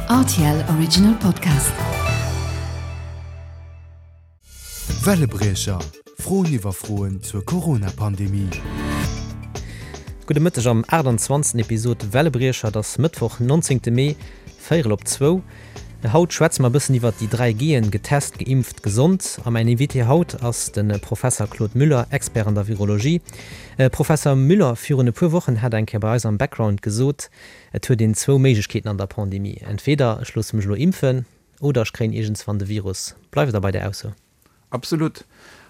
Rtl Original Podcast. Wellebriecher, Froen iwwer Froen zur Corona-Pandemie. Gudde Mëtteg am 28. Episod Wellebriecher. Et ass Mëttwoch, 19. Mee, véierel op zwou. Haut schwätze mer e bëssen iwwert déi 3 G'en, getest, geimpft, gesond. A mäin Invité haut ass de Professer Claude Müller, Expert an der Virologie. Professer Müller, virun e puer Wochen hat Der eng Kéier bei eis am Background gesot, et huet een zwou Méiglechkeeten an der Pandemie, Entweder ech loosse mech elo impfen oder ech kréien iergendswann de Virus. Bleift Der bei där Ausso? Absolut.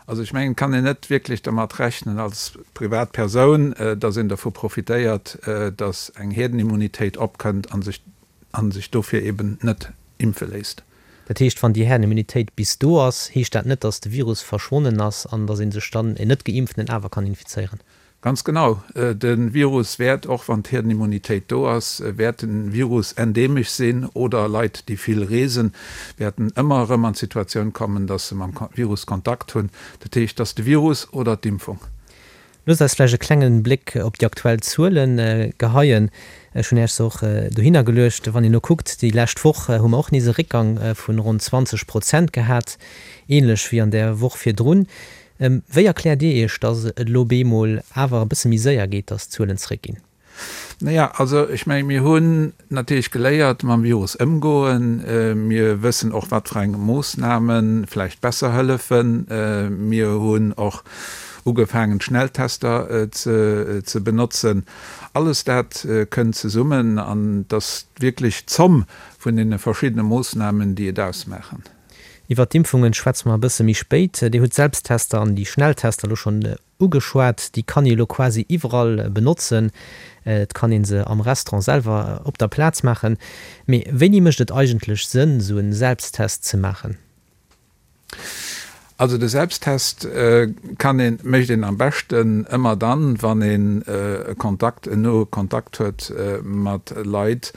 Also ech mengen, et kann een net wierklech dermat rechnen als privat Persoun, datt een dervu profitéiert, datt eng Hierdenimmunitéit opkënnt a sech a sech dofir eben net impfe léisst. Dat heescht, wann déi Herdenimmunitéit bis do ass, heescht dat net, datt de Virus verschwonnen ass an datt ee sech dann, en Net-Geimpften, awer kann infizéieren? Ganz genau. De Virus wäert, och wann d'Hierdenimmunitéit do ass, wäert de Virus endeemesch sinn oder Leit, déi vill reesen, wäerten ëmmer erëm an d'Situatioun kommen, datt se mam Virus Kontakt hunn. Dat heescht, et ass de Virus oder d'Impfung. Loosst eis vläicht e klengen Bléck op déi aktuell Zuele geheien. Ech hunn Iech se och dohinner geluecht. Wann een elo kuckt, déi lescht Woch hu mer och nees e Réckgang vu ronn 20 Prozent gehat, änlech wéi an där Woch virdrun. Wéi erkläert Dir Iech, datt et elo bemol awer e bësse méi séier geet, datt d'Zuelen zeréckginn? Naja, also ech menge mir hunn natierlech geléiert mam Virus ëmgoen. Mir wëssen och, wat fir eng Moossname vläicht besser hëllefen. Mir hunn och ugefaangen, d'Schnelltester ze benotzen. Alles dat kënnt zesummen an et ass wierklech d'Zomm vun deene verschiddene Moossnamen, déi et ausmaachen. Iwwert d'Impfungen schwätze mer e bësse méi spéit. Dir hutt d'Selbsttester an déi Schnelltester elo schonn ugeschwat. Déi kann ee elo quasi iwwerall benotzen. Et kann ee se am Restaurant selwer op der Plaz maachen. Mee wéini mécht et eigentlech Sënn, esou e Selbsttest ze maachen? Also de Selbsttest kann een, mécht een am beschten ëmmer dann, wann een e Kontakt, en noe Kontakt huet mat Leit,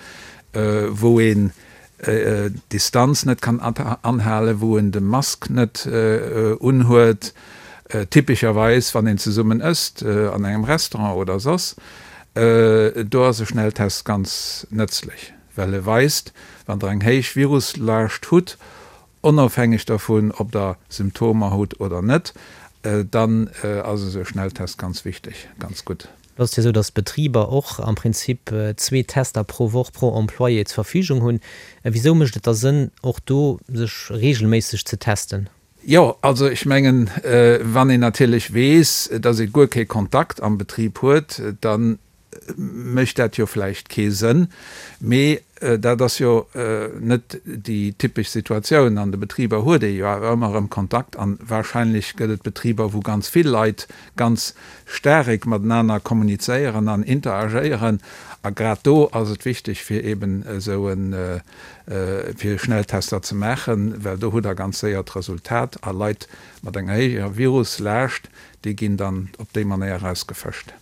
wou een d'Distanz net kann anhalen, wou en de Mask net unhuet, typescherweis wann een zesummen ësst an engem Restaurant oder soss. Do ass e Schnelltest ganz nëtzlech, well e weist, wann Der eng héich Viruslaascht hutt, onofhängeg dervun, ob Der Symptomer hutt oder net, dann ass esou e Schnelltest ganz wichteg, ganz gutt. Et ass jo esou, datt d'Betriber och am Prinzip zwee Tester pro Woch pro Employé zur Verfügung hunn. Wisou mécht et da Sënn, och do sech reegelméisseg ze testen? Jo, also ech mengen, wann een natierlech weess, datt ee guer kee Kontakt am Betrib huet, da mécht dat jo vläicht kee Sënn. Mee dat ass jo net déi typesch Situatioun. An de Betriber huet ee jo awer ëmmer erëm Kontakt an wahrscheinlech gëtt et Betriber, wou ganz vill Leit ganz staarek matenaner kommunizéieren an interagéieren. A grad do ass et wichteg, fir eeben esou e fir Schnelltester ze maachen, well do hutt Der ganz séier d'Resultat a Leit mat enger héijer Viruslaascht, déi ginn dann op déi Manéier erausgefëscht.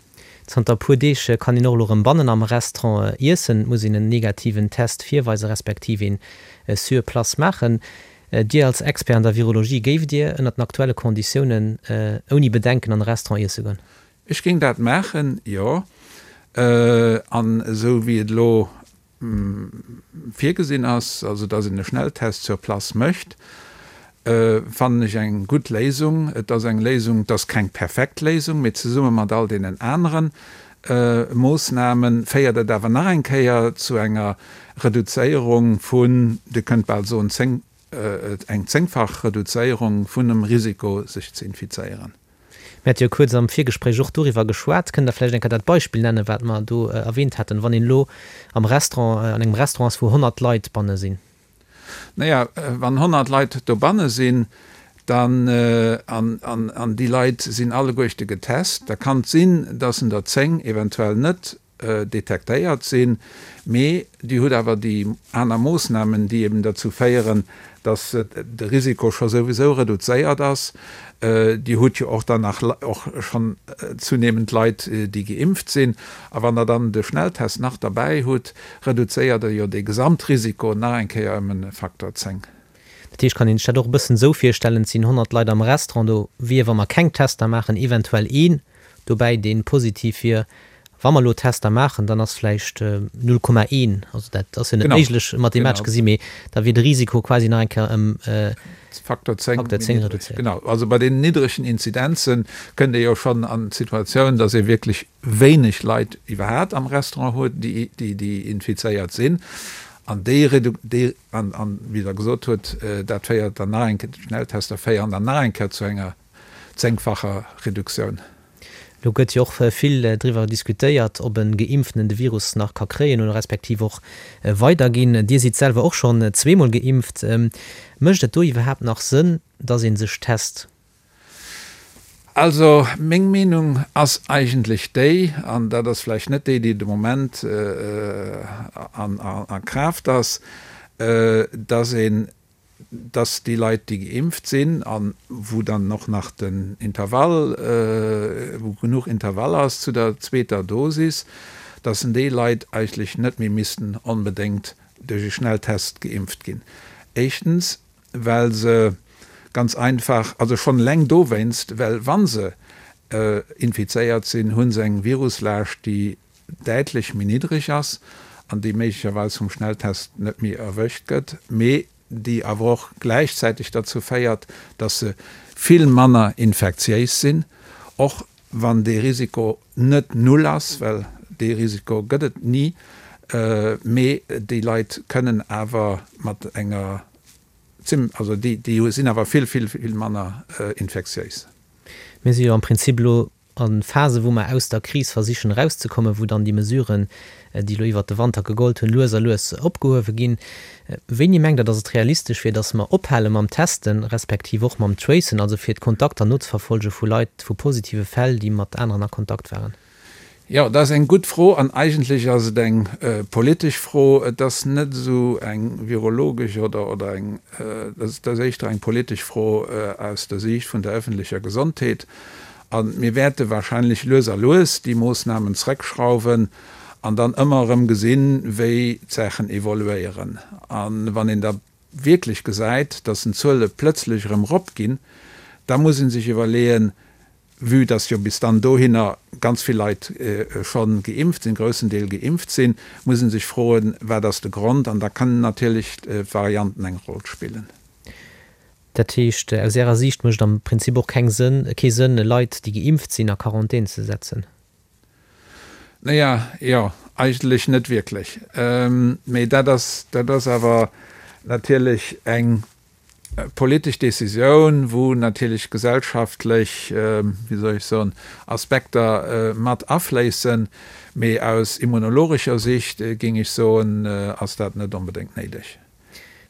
Zanter e puer Deeg kann een och elo rëm bannen am Restaurant iessen. Et muss een en negativen Test virweisen, respektiv een sur place maachen. Dir als Expert an der Virologie, géift Dir ënnert den aktuelle Konditiounen ouni Bedenken an e Restaurant iesse goen? Ech géing dat maachen, jo. An esou wéi et elo virgesinn ass, also dass een e Schnelltest sur place mécht, fannen ech eng gutt Léisung. Et ass eng Léisung, et ass keng perfekt Léisung, mee zesumme mat all deenen anere Moossname féiert et awer nach eng Kéier zu enger Reduzéierung vun, Dir kënnt bal soen, zéng, eng zéngfach Reduzéierung vun dem Risiko, sech ze infizéieren. Mir hate jo kuerz am Virgespréich och doriwwer geschwat. Kënnt Der vläicht eng Kéier dat Beispill nennen, wat mer do erwähnt haten, wann een elo am Restaurant, an engem Restaurant ass, wou 100 Leit banne sinn? Naja, wann 100 Leit dobanne sinn, dann, an, an déi Leit sinn alleguerchte getest, da kann et sinn, dass en der 10 eventuell net detektéiert sinn, mee Dir hutt awer déi aner Moossnamen, déi eben derzou féieren, dass de Risiko scho souwisou reduzéiert ass. Dir hutt jo och dann nach och schonn zunehmend Leit, déi geimpft sinn. A wann Der dann de Schnelltest nach derbäi hutt, reduzéiert Der jo dee Gesamtrisiko nach eng Kéier ëm e Faktor 10. Dat heescht, kann een sech dat och e bëssen esou virstellen, et sinn 100 Leit am Restaurant, do wier, wa mer keng Tester maachen, eventuell een dobäi, dee positiv wier. Wa mer elo Tester maachen, dann ass vläicht 0,1, also dat ass jo net méiglech mathematesch gesi, mee da wier de Risiko quasi nach eng Kéier ëm Faktor 10 reduzéiert. Genau, also bei deenen niddregen Inzidenze kënnt ee jo schonn an d'Situatioun, datt ee wierklech wéineg Leit iwwerhaapt am Restaurant huet, déi infizéiert sinn. An déi, an wéi Der gesot hutt, dat féiert dann nach eng Kéier, d'Schnelltester féieren dann nach eng Kéier zu enger zéngfacher Reduktioun. Elo gëtt jo och vill driwwer diskutéiert, ob e Geimpften de Virus nach ka kréien oder respektiv och weiderginn. Dir sidd selwer och schonn zweemol geimpft. Mécht et do iwwerhaapt nach Sënn, datt ee sech test? Also meng Meenung ass eigentlech déi, an dat ass vläicht net déi, déi de Moment a Kraaft ass, datt een dass déi Leit, déi geimpft sinn a wou dann och nach den Intervall, wou genuch Intervall ass zu der zweeter Dosis, dass déi Leit eigentlech net méi missten onbedéngt duerch e Schnelltest geimpft ginn. Éischtens, well se ganz einfach, also schonn eleng dowéinst, well wa se infizéiert sinn, hu se eng Viruslaascht, déi däitlech méi niddreg ass an déi méiglecherweis vum Schnelltest net méi erwëscht gëtt, mee déi awer och gläichzäiteg derzou féiert, dass se vill manner infektiéis sinn, och wann dee Risiko net null ass, well dee Risiko gëtt et ni, mee déi Leit kënnen awer mat enger zim, also déi sinn awer vill, vill, vill manner infektiéis. Mir si jo am Prinzip elo A Phase wou mer aus der Kris versichen erauszekommen, wou dann déi Mesuren, déi elo iwwert de Wanter gegollt hunn, lues a lues opgehuewe ginn. Wéini mengt Der, datt et realistesch wier, datt mer ophale mam Testen, respektiv och mam Tracen, also fir d'Kontakter nozeverfolge vu Leit, vu positive Fäll, déi mat aneren a Kontakt waren? Jo, dat ass eng gutt Fro an eigentlech ass et eng politesch Fro. Et ass net esou eng virologesch oder oder eng, et ass éischter eng politesch Fro aus der Siicht vun der öffentlecher Gesondheet. A mir wäerte wahrscheinlech lues a lues déi Moossnamen zrëckschrauwen an dann ëmmer erëm gesinn, wéi d'Saachen evoluéieren. A wann een da wierklech gesäit, dass den Zuele plëtzlech erëm eropginn, da muss ee sech iwwerleeën, vue dass jo bis dann dohinner ganz vill Leit scho geimpft sinn, groussen Deel geimpft sinn, muss ee sech froen, wat ass de Grond? An da kënnen natierlech d'Varianten eng Roll spillen. Dat heescht, aus Ärer Siicht mécht am Prinzip och keng Sënn, kee Sënn, Leit, déi geimpft sinn, a Quarantän ze setzen? Naja, jo, eigentlech net wierklech. Mee dat ass, dat ass awer natierlech eng politesch Décisioun, wou natierlech gesellschaftlech, wéi soll ech soen, Aspekter mat afléissen. Mee aus immunologescher Sicht, géing ech soen, ass dat net onbedéngt néideg.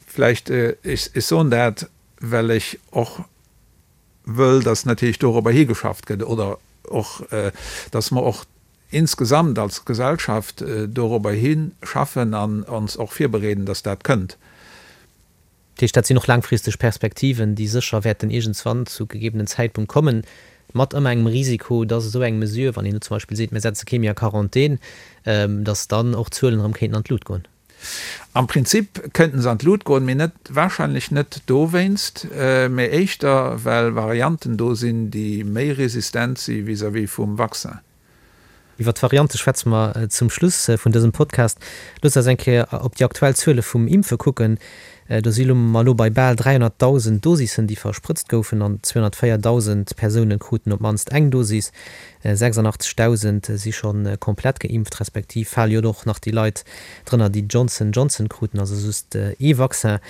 Vläicht, ech soen dat, well ech och wëll, dass natierlech dorobber higeschafft gëtt oder och, dass mer och insgesamt als Gesellschaft dorobber hischaffen an ons och virbereeden, dass dat kënnt. Dat heescht, dat sinn och laangfristeg Perspektiven, déi sécher wäerten iergendswann zu gegebenen Zäitpunkt kommen, mat ëmmer engem Risiko, dass esou eng Mesure, wann een elo zum Beispill seet, mir setze kee méi a Quarantän, dass dann och d'Zuelen erëm kéinten an d'Lut goen. Am Prinzip kënnten se an d'Lut goen, mee net, wahrscheinlech net dowéinst, mee éischter well Varianten do sinn, déi méi resistent si vis-à-vis vum Vaccin. Iwwer d'Variante schwätze mer zum Schluss vun dësem Podcast. Loosst eis eng Kéier op déi aktuell Zuele vum Impfe kucken. Do si mer elo bei bal 300.000 Dosissen, déi versprëtzt goufen an 204.000 Persoune kruten op d'mannst eng Dosis. 86.000 si scho komplett geimpft, respektiv fale jo och nach déi Leit drënner, déi Johnson Johnson kruten, also just ee Vaccin.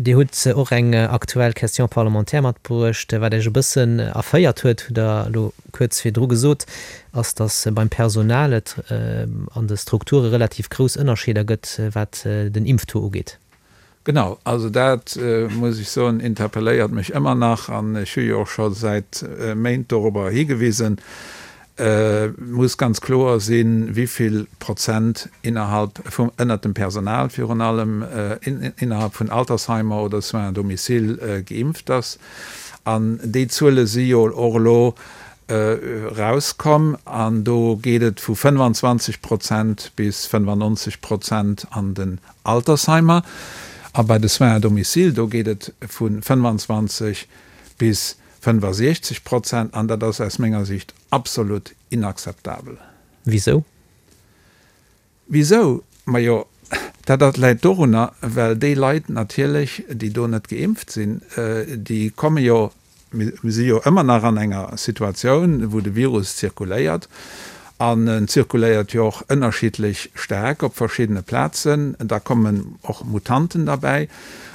Dir hutt och eng aktuell Question parlementaire matbruecht. Wat Iech e bëssen erféiert huet, hutt Der elo kuerz virdru gesot, ass, datt beim Personal et an de Strukture relativ grouss Ënnerscheeder gëtt, wat den Impftaux ugeet. Genau, also dat, muss ech soen, interpelléiert mech ëmmer nach an ech hu jo och scho säit Méint dorobber higewisen. Et muss ganz kloer sinn, wivill Prozent innerhalb vum, ënnert dem Personal virun allem, innerhalb vun Altersheimer oder Soins à domicile geimpft ass. An déi Zuele si jo och elo erauskomm an do geet et vu 25 Prozent bis 95 Prozent an den Altersheimer a bei de Soins à domicile, do geet et vu 25 bis 65 Prozent an dat ass aus menger Sicht absolut inakzeptabel. Wisou? Wisou? Majo, dat dat läit dorunner, well déi Leit natierlech, déi do net geimpft sinn, déi komme jo, mir si jo ëmmer nach an enger Situatioun, wou de Virus zirkuléiert, an en zirkuléiert jo och ënnerschiddlech staark op verschiddene Plazen, da kommen och Mutanten derbäi,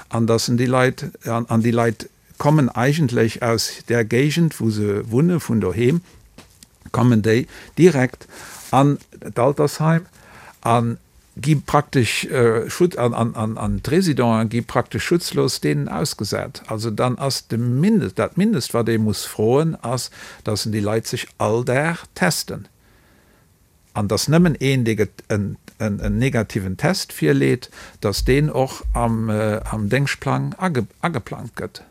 an dass en déi Leit, an déi Leit kommen eigentlech aus där Géigend, wou se wunne, vun doheem kommen déi direkt an d'Altersheim a gi praktesch Schutz, an d'Résidenten gi praktesch schutzlos deenen ausgesat. Also dann ass de Mindest, dat Mindest, wat ee muss froen, ass, dass en déi Leit sech all Dag testen. An dass nëmmen een, dee en negativen Test virleet, dass deen och am Déngschtplang ageplangt gëtt.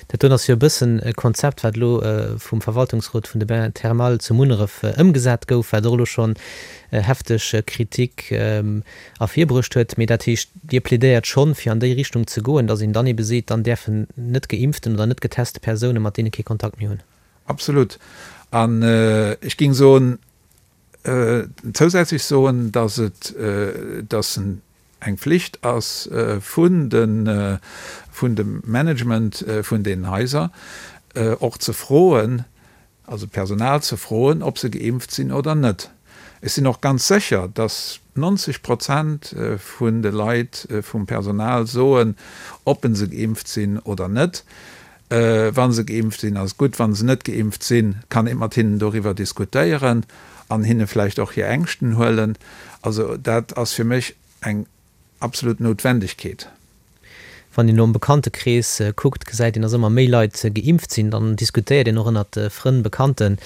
Dat doen ass jo e bëssen e Konzept, wat elo vum Verwaltungsrot vun de Bains thermales zu Munneref ëmgesat gouf, wat och elo schonn hefteg Kritik ervirbruecht huet. Mee dat heescht, Dir plädéiert schonn, fir an déi Richtung ze goen, dass een dann ebe seet, dann däerfen net geimpften oder net geteste Persoune mat deene kee Kontakt méi hunn. Absolut. An ech géing soen, Zousätzlech soen, dass et, dass eng Flicht ass vun de, vun dem Management vun deenen Haiser, och ze froen, also d'Personal ze froen, ob se geimpft sinn oder net. Ech sinn och ganz sécher, dass 90 Prozent vun de Leit vum Personal soen, ob se geimpft sinn oder net. Wa se geimpft sinn, ass et gutt. Wa se net geimpft sinn, kann ee mat hinnen doriwwer diskutéieren an hinne vläicht och hir Ängschten huelen. Also dat ass fir mech eng absolut Noutwendegkeet. Wann een elo am Bekanntekrees kuckt, gesäit een, dass ëmmer méi Leit geimpft sinn. Dann diskutéiert een och ënnert Frënn, Bekannten,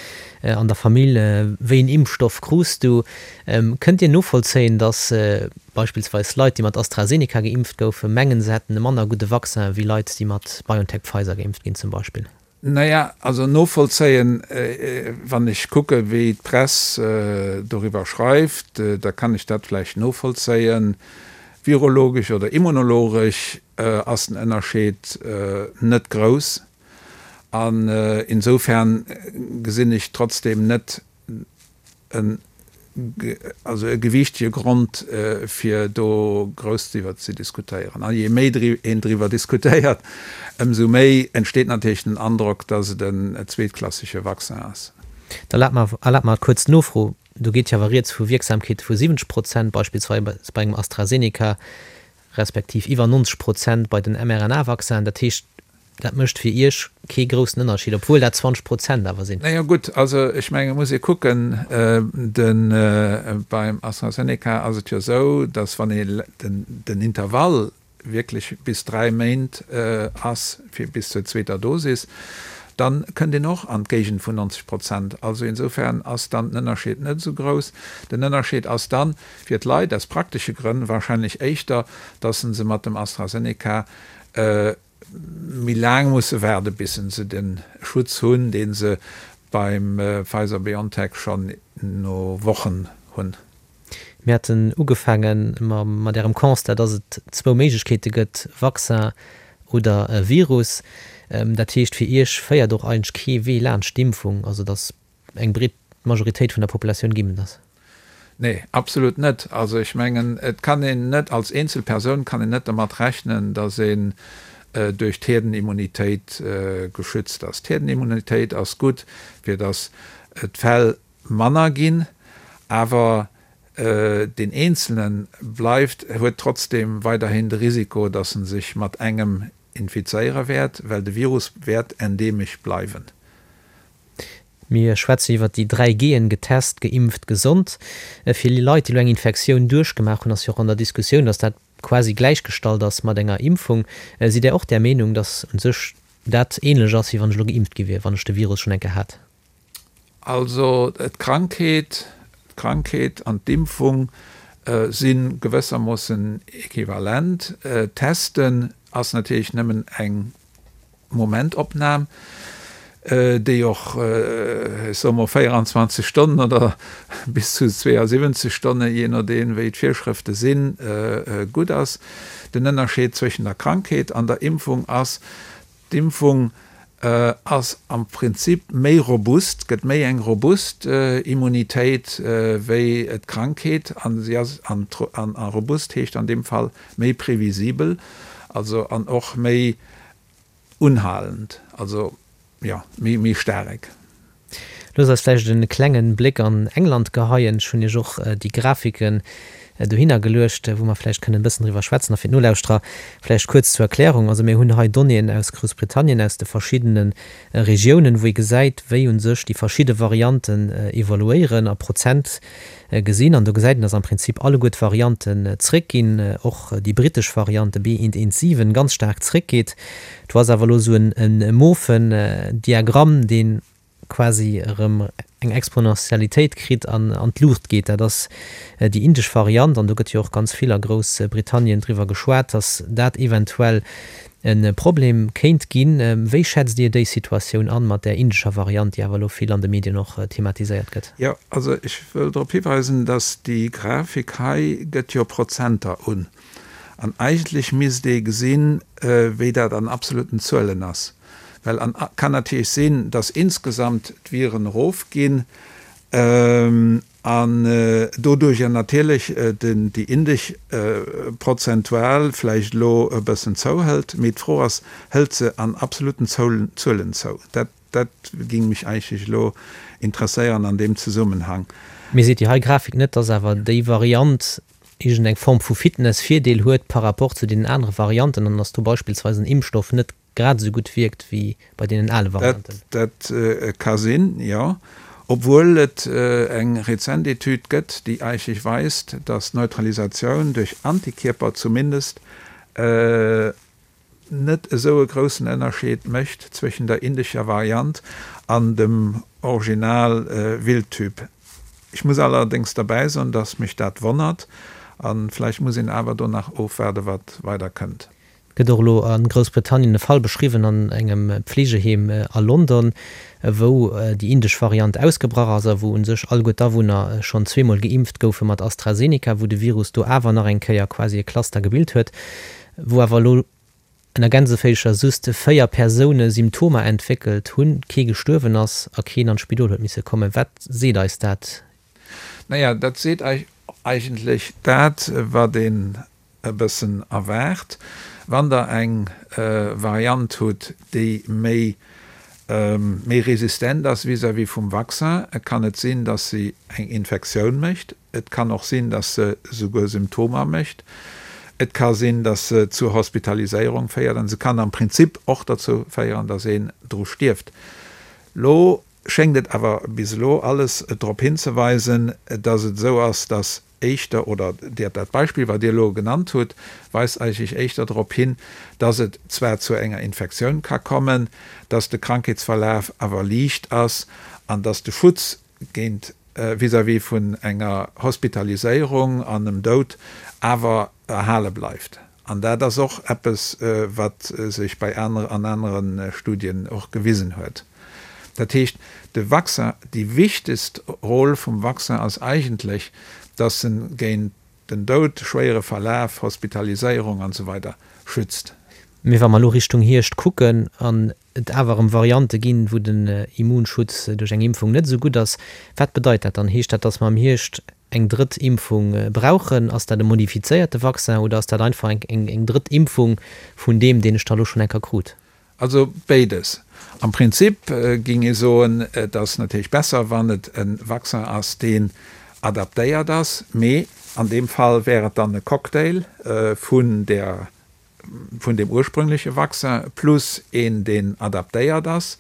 an der Famill, Wéi een Impfstoff krus du? Kënnt Dir novollzéien, dass Beispillsweis Leit, déi mat AstraZeneca geimpft goufen, mengen, se hätten e manner gudde Vaccin wéi Leit, déi mat BioNTech-Pfizer geimpft ginn zum Beispill. Naja, also novollzéien, wann ech kucke wéi d'Press doriwwer schreift, da kann ech dat vläicht novollzéien. Virologesch oder immunologesch ass den Ënnerscheed net grouss an insofern gesinn ech trotzdem net en also e gewiichtege Grond, fir do grouss driwwer ze diskutéieren. A jee méi een driwwer diskutéiert, ëmsou méi entsteet natierlech den Androck, dass et en zweetklassege Vaccin ass. Da erlaabt mer kuerz d'Nofro, Do geet jo awer rieds vu Wierksamkeete vu 70 Prozent, beispillsweis bei engem AstraZeneca, respektiv iwwer 90 Prozent bei den mRNA-Vaccinen. Dat heescht, Dat mécht fir Iech kee groussen Ënnerscheed, obwuel dat 20 Prozent awer sinn. Naja gutt, also ech mengen, et muss ee kucken, de beim AstraZeneca ass et jo esou, datt wann ee den Intervall wierklech bis 3 Méint ass fir bis zur zweeter Dosis, da kënnt een och an d'Géigend vun 90 Prozent. Also insofern ass dann den Ënnerscheed net esou grouss. Den Ënnerscheed ass dann fir d'Leit aus praktesche Grënn wahrscheinlech éischter, datt se mat dem AstraZeneca méi laang musse waarde bis se de Schutz hunn, dee se beim Pfizer-BioNTech schonn no Wochen hunn. Mir haten ugefaange mat Ärem Constat, dass et zwou Méiglechkeete gëtt, Vaccin oder Virus. Dat heescht, fir Iech féiert och eigentlech kee Wee laanscht d'Impfung, also dass eng breet Majoritéit vun der Populatioun geimpft ass? Nee, absolut net. Also ech mengen, et kann een net, als eenzel Persoun kann een net dermat rechnen, datt een duerch d'Hierdenimmunitéit geschützt ass. D'Hierdenimmunitéit ass gutt, fir datt d'Fäll manner ginn, awer deen Eenzelne bleift, huet trotzdem weiderhin de Risiko, datt en sech mat engem infizéiere wäert, well de Virus wäert endeemesch bleiwen. Mir schwätzen iwwert déi 3 G'en, getest, geimpft, gesond. Fir Leit, déi elo eng Infektioun duerchgemaach hunn, ass jo och an der Diskussioun, datt dat quasi gläichgestallt ass mat enger Impfung. Sidd Där och där Meenung, datt u sech dat ähnlech ass, wéi wann ech elo geimpft gi wier, wann ech de Virus schonn eng Kéier hat? Also d'Krankheet, d'Krankheet an d'Impfung si gewëssermoossen equivalent. Testen ass natierlech nëmmen eng Momentopnam, déi och, ech soe mol, 24 Stonnen oder bis zu 72 Stonnen, jee nodeem wéi d'Virschrëfte sinn, gutt ass. Den Ënnerscheed zwëschen der Krankheet an der Impfung ass, D'impfung. Ass am Prinzip méi robust, gëtt méi eng robust Immunitéit wéi d'Krankheet an si ass, an robust heescht an deem Fall méi previsibel, also an och méi unhalend, also jo méi méi staarek. Loosst eis vläicht e klengen Bléck an England geheien. Ech hunn Iech och déi Grafiken dohinner geluecht, wou mer vläicht kënnen e bëssen driwwer schwätzen. A fir d'Nolauschterer vläicht kuerz zur Erklärung, Also mir hunn hei Donnéeën aus Groussbritannien, aus de verschiddene Regiounen, wou ee gesäit, wéi u sech déi verschidde Varianten evoluéieren a Prozent gesinn. An do gesäit een, dass am Prinzip alleguer d'Varianten zréckginn, och déi brittesch Variant, de B.1.1.7, ganz staark zréckgeet. Do ass awer elo esou e mofen Diagramm, dee quasi erëm eng Exponentialitéit kritt an an d'Luucht geet. Dat ass déi indesch Variant an do gëtt jo och ganz vill a Groussbritannien driwwer geschwat, dass dat eventuell e Problem kéint ginn. Wéi schätzt Dir déi Situatioun an, mat där indescher Variant, déi awer elo vill an de Medien och thematiséiert gëtt? Jo, also ech wëll drop hiweisen, dass déi Grafik hei gëtt jo Prozenter un. An eigentlech misst ee gesinn, wéi dat an absoluten Zuelen ass. Well an kann natierlech sinn, dass insgesamt d'Viren erofginn an doduerjer natierlech déi indesch prozentual vläicht elo e bëssen zouhëlt. Mee d'Fro ass, Hëlt se an absoluten Zuelen zou? Dat Dat ging mech eigentlech elo interesséieren an deem Zesummenhang. Mee seet déi hei Grafik net, dass awer déi Variant iergend eng Form vu Fitness-Virdeel huet par rapport zu deenen anere Varianten an dass do beispillsweis en Impfstoff net grad esou gutt wierkt wéi bei deenen ale Varianten? Dat ka sinn, jo. Obwuel et eng rezent Etüd gëtt, déi eigentlech weist, dass d'Neutralisatioun duerch Antikierper zumindest net esou e groussen Ënnerscheed mécht zwëschen der indescher Variant an dem Original Wildtyp. Ech muss allerdéngs derbäi soen, dass mech dat wonnert, a vläicht muss een awer do nach ofwaarde wat weider kënnt. Et gëtt och elo a Groussbritannien e Fall beschriwwen an engem Pflegeheem a London, wou déi indesch Variant ausgebrach ass a wou u sech alleguer d'Awunner schonn zweemol geimpft goufe mat AstraZeneca, wou de Virus do awer nach eng Kéier quasi e Cluster gebilt huet. wou awer elo ënner Gänseféischer just 4 Persoune Symptomer entwéckelt hunn, kee gestuerwen ass a keen an d'Spidol huet misse kommen. Wat seet eis dat? Naja, dat seet eigentlech dat, wat een e bëssen erwaart. Wann Der eng Variant hutt, déi méi méi resistent ass vis-à-vis vum Vaccin, kann et sinn, dass se eng Infektioun mécht. Et kann och sinn, dass se souguer Symptomer mécht. Et ka sinn, dass se zur Hospitaliséierung féiert an se kann am Prinzip och derzou féieren, dass een dru stierft. Lo schéngt et awer bis elo alles drop hinzeweisen, dass et esou ass, dass éischter, oder dat Beispill, wat Dir elo genannt hutt, weist eigentlech éischter drop hin, dass et zwar zu enger Infektioun ka kommen, dass de Krankheetsverlaf awer liicht ass an dass de Schutz géint vis-à-vis vun enger Hospitaliséierung an em Doud awer erhale bleift. An dat ass och eppes, wat sech bei aner an anere Studien och gewisen huet. Dat heescht, de Vaccin, déi wichtegst Rôle vum Vaccin ass eigentlech, dass en géint den Doud, schwéiere Verlaf, Hospitaliséierung an esou weider schützt. Mee wa mer elo Richtung Hierscht kucken an et awer erëm Variante ginn, wou den Immunschutz duerch eng Impfung net esou gutt ass, wat bedeit dat dann? Heescht dat, datt mer am Hierscht eng drëtt Impfung brauchen? Ass dat e modifizéierte Vaccin oder ass dat einfach eng drëtt Impfung vun deem, deen ech da elo schonn eng Kéier krut? Also béides. Am Prinzip géing ee soen, et ass natierlech besser, wann et e Vaccin ass, deen adaptéiert ass, mee an deem Fall wär et dann e Cocktail vun der, vun deem ursprüngleche Vaccin plus een, deen adaptéiert ass.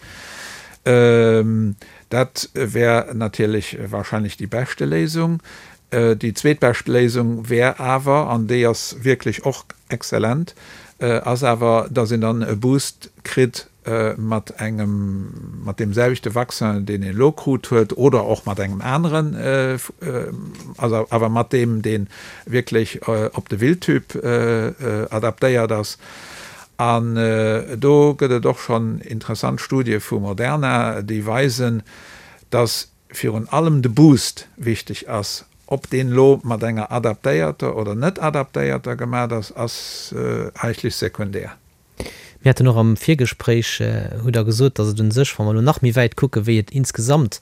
Dat wär natierlech wahrscheinlech déi beschte Léisung. Déi zweetbescht Léisung wär awer, an déi ass wierklech och exzellent, ass awer, dass een dann e Boost kritt mat engem, mat deem selwechte Vaccin, deen een elo krut huet, oder och mat engem aneren, also awer mat deem, dee wierklech op de Wildtyp adaptéiert ass. An do gëtt et och schonn interessant Studie vu Moderna, déi weisen, dass virun allem de Boost wichteg ass. Ob deen elo mat enger adaptéierter oder net adaptéierter gemat ass, ass eigentlech sekundär. Mir haten och am Virgespréich, hutt Der gesot, datt et un sech, wa mer elo nach méi wäit kucken, wéi et insgesamt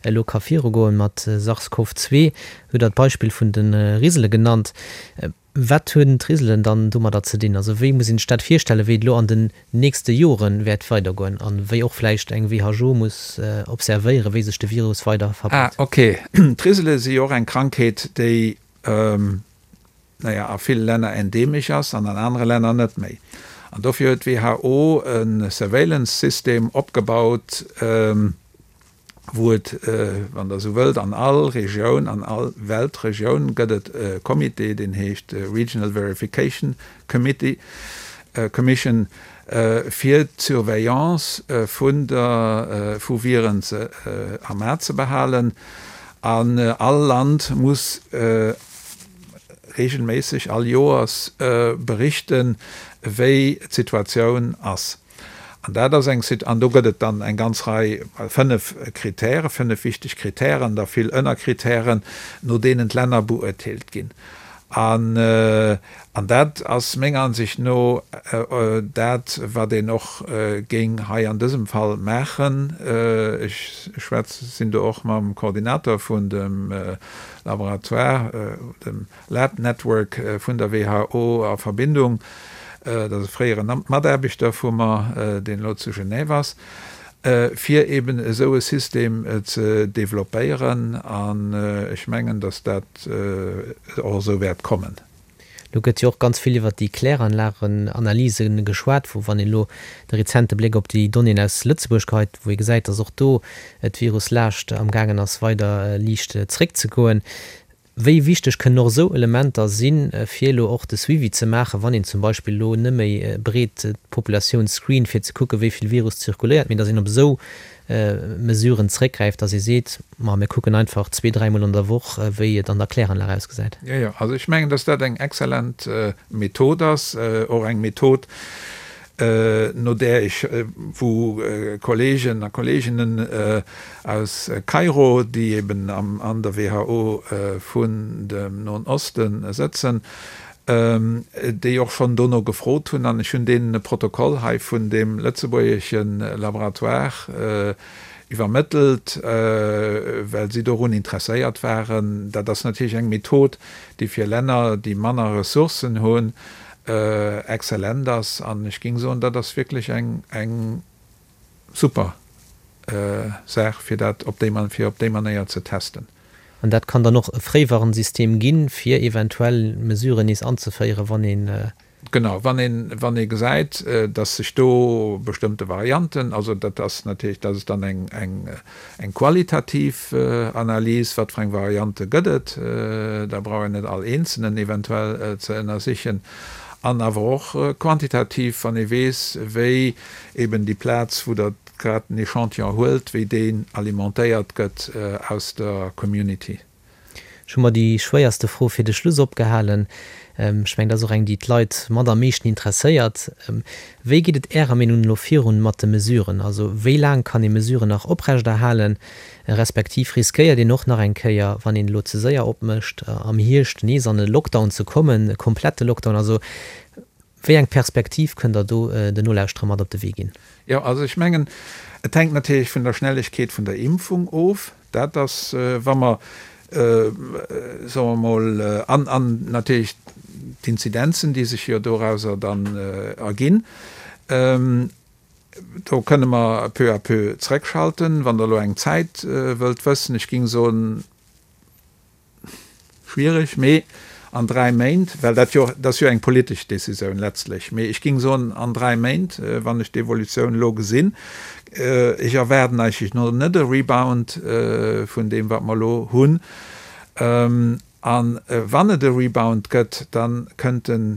elo ka virugoen mat SARS-CoV-2, hutt Der d'Beispill vun de Risele genannt. Wat hunn d'Riselen dann domadder ze dinn? Also wéi muss een sech dat virstellen, wéi et elo an den nächste Jore wäert weidergoen a wéi och vläicht eng WHO muss observéieren, wéi sech de Virus weider verbreet? Ah, ok. D'Risele si jo och eng Krankheet, déi, naja, a ville Länner endeemesch ass an an anere Länner net méi. An dofir huet d'WHO e Surveillance-System opgebaut, wou et, wann Der esou wëllt, an all Regioun, an all Weltregioun gëtt et e Comité, deen heescht Regional Verification Committee, Commission, fir d'Surveillance vun der, vu Viren ze, am A ze behalen. An all Land muss regelméisseg, all Joers berichten, wéi d'Situatioun ass. An dat ass eng Sit, an do gëtt et dann eng ganz Rei, fënnef Kritären, fënnef wichteg Kritären, da vill Ënnerkritären, no deenen d'Länner beurteelt ginn. An, an dat ass menger Ansicht no dat, wat een och géing hei an dësem Fall maachen. Ech schwätz, sinn do och mam Koordinator vun dem Laboratoire, dem Lab Network vun der WHO a Verbindung, dat ass e fréiere Mataarbechter vu mer, deen elo zu Genève ass, fir eben esou e System ze developpéieren. An ech mengen, datt dat och esou wäert kommen. Elo gëtt jo och ganz vill iwwert déi Kläranlagenanalyse geschwat, wou, wann een elo de rezente Bléck op déi Donnéeën aus Lëtzebuerg geheit, wou ee gesäit, datt och do d'Viruslaascht amgaangen ass weider liicht zréckzegoen. Wéi wichteg kënnen och esou Elementer sinn, fir elo och de Suivi ze maachen, wann een zum Beispill elo net méi breet d'Populatioun screent, fir ze kucken, wéi vill Virus zirkuléiert, mee datt een op esou Mesuren zréckgräift, datt ee seet, ma mir kucken einfach zwee-, dräimol an der Woch, wéi et an der Kläranlag ausgesäit? Jo, jo, also ech mengen, datt dat eng exzellent Method ass, och eng Method, no där ech, wou Kollegen a Kolleginnen aus Kairo, déi eben an der WHO vun dem Noen Oste sëtzen, déi och schonn dono gefrot hunn, an ech hunn deenen e Protokoll hei vun deem lëtzebuergesche Laboratoire iwwermëttelt, well si dorun interesséiert waren. Dat ass natierlech eng Method, déi fir Länner, déi manner Ressourcen hunn, exzellent ass an ech géing soen, dat ass wierklech eng eng super Saach fir dat op déi fir op déi Manéier ze testen. An dat kann dann och e Fréiwarnsystem ginn, fir eventuell Mesuren nees anzeféieren, wann een. Genau, wann een wann ee gesäit, datt sech do bestëmmte Varianten, also dat ass natierlech, dat ass dann eng eng Eng qualitativ Analys, wat fir eng Variante gëtt et, da brauch een net all eenzelnen eventuell ze ënnersichen, an awer och quantitativ, wann ee weess, wéi eben déi Plaz, wou Der grad den Echantillon huelt, wéi deen alimentéiert gëtt aus der Community. Ech hu mer déi schwéierste Fro fir de Schluss opgehalen. Ech mengen, dat ass och eng, déi d'Leit mat am meeschten interesséiert. Wéi geet et Ärer Meenung no elo virun mat de Mesuren? Also wéi laang kann ee Mesuren nach oprechterhalen, respektiv riskéiert een och nach eng Kéier, wann een elo ze séier opmécht, am Hierscht nees an e Lockdown ze kommen, e komplette Lockdown? Also wéi eng Perspektiv kënnt Der do den Nolauschterer mat op de Wee ginn? Jo, also ech mengen, et hänkt natierlech vun der Schnellegkeet vun der Impfung of. Dat ass, wa mer, soe mer emol, an, an natierlech d'Inzidenzen, déi sech jo dorauser dann erginn, do kënne mer peu à peu zrëckschalten. Wann Der elo eng Zäit wëllt wëssen, ech géing soen, Schwiereg, mee an 3 Méint, well dat jo, dat ass jo eng politesch Décisioun letztlech, mee ech géing soen an 3 Méint, wann ech d'Evolutioun elo gesinn, ech erwaarden eigentlech no net e Rebound vun deem wat mer elo hunn, a wann et e Rebound gëtt, da kënnt en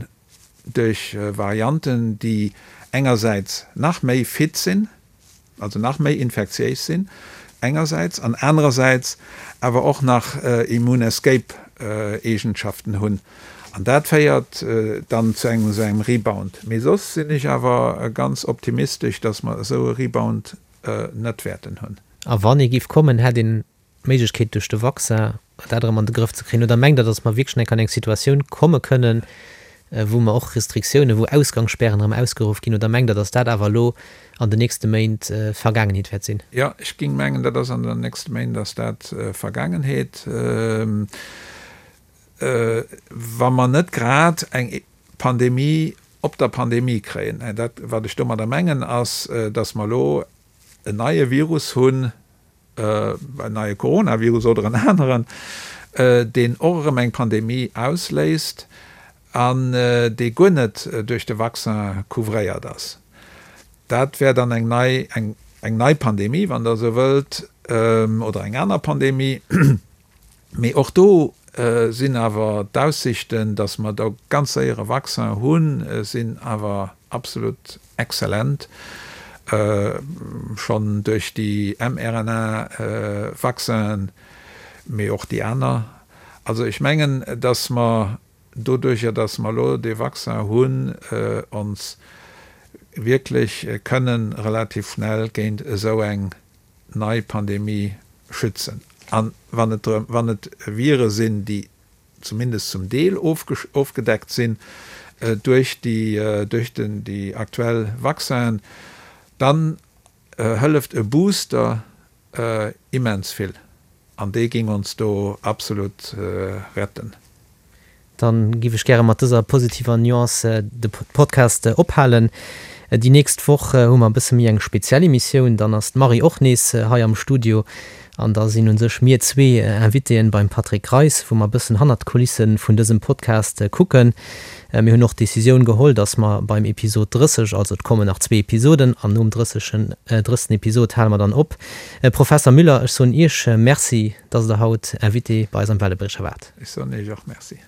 duerch Varianten, déi engersäits nach méi fit sinn, also nach méi infektiéis sinn engersäits an anerersäits awer och nach Immune Escape Eegenschaften hunn an dat féiert dann zu engem esou engem Rebound. Mee soss sinn ech awer ganz optimistesch, datt mer esou e Rebound net wäerten hunn. A wann ee géif kommen, hätt een d'Méiglechkeet duerch de Vaccin dat erëm an de Grëff ze kréien? Oder mengt Der, datt mer wierklech nach an eng Situatioun komme kënnen? wou mer och Restriktiounen, wou Ausgangsspären erëm ausgeruff ginn? Oder mengt Der, datt dat awer elo an den nächste Méint Vergaangenheet wäert sinn? Jo, ech géing mengen, dat ass an den nächste Méint ass dat Vergaangenheet. Wa mer net grad eng Pandemie op der Pandemie kréien. Dat, wat ech domadder mengen, ass, datt mer elo en neie Virus hunn, en neie Coronavirus oder en aneren, deen och erëm eng Pandemie ausléist an dee guer net duerch de Vaccin couvréiert ass. Dat wär dann eng nei, eng nei Pandemie, wann Der esou wëllt, oder eng aner Pandemie. Mee och do sinn awer d'Aussichten, datt mer do ganz séier e Vaccin hunn, sinn awer absolut exzellent. Schonn duerch déi mRNA-Vaccinen, mee och déi aner. Also ech mengen, datt mer doduerjer, datt mer elo dee Vaccin hunn, ons wierklech kënnen relativ schnell géint esou eng nei Pandemie schützen. An wann et drëm, wann et Vire sinn, déi zumindest zum Deel ofgedeckt sinn duerch déi, duerch den, déi aktuell Vaccinen, dann hëlleft e Booster immens vill. An dee géing ons do absolut retten. Dann giff ech gäre mat dëser positiver Nuance de Podcast ophalen. Déi nächst Woch hu mer e bësse méi eng speziell Emissioun. Dann ass d'Marie och nees hei am Studio an da sinn un sech mir zwee Invitéen beim Patrick Greis, wou mer e bëssen hannert d'Kulisse vun dësem Podcast kucken. Mir hunn och d'Decisioun geholl, dass mer beim Episod 30, also et kommen nach zwee Episoden, an nom 30. Episod hale mer dann op. Professer Müller, ech soen Iech Merci, dass Der haut Invité bei eis am Wellebriecher waart. Ech soen Iech och Merci.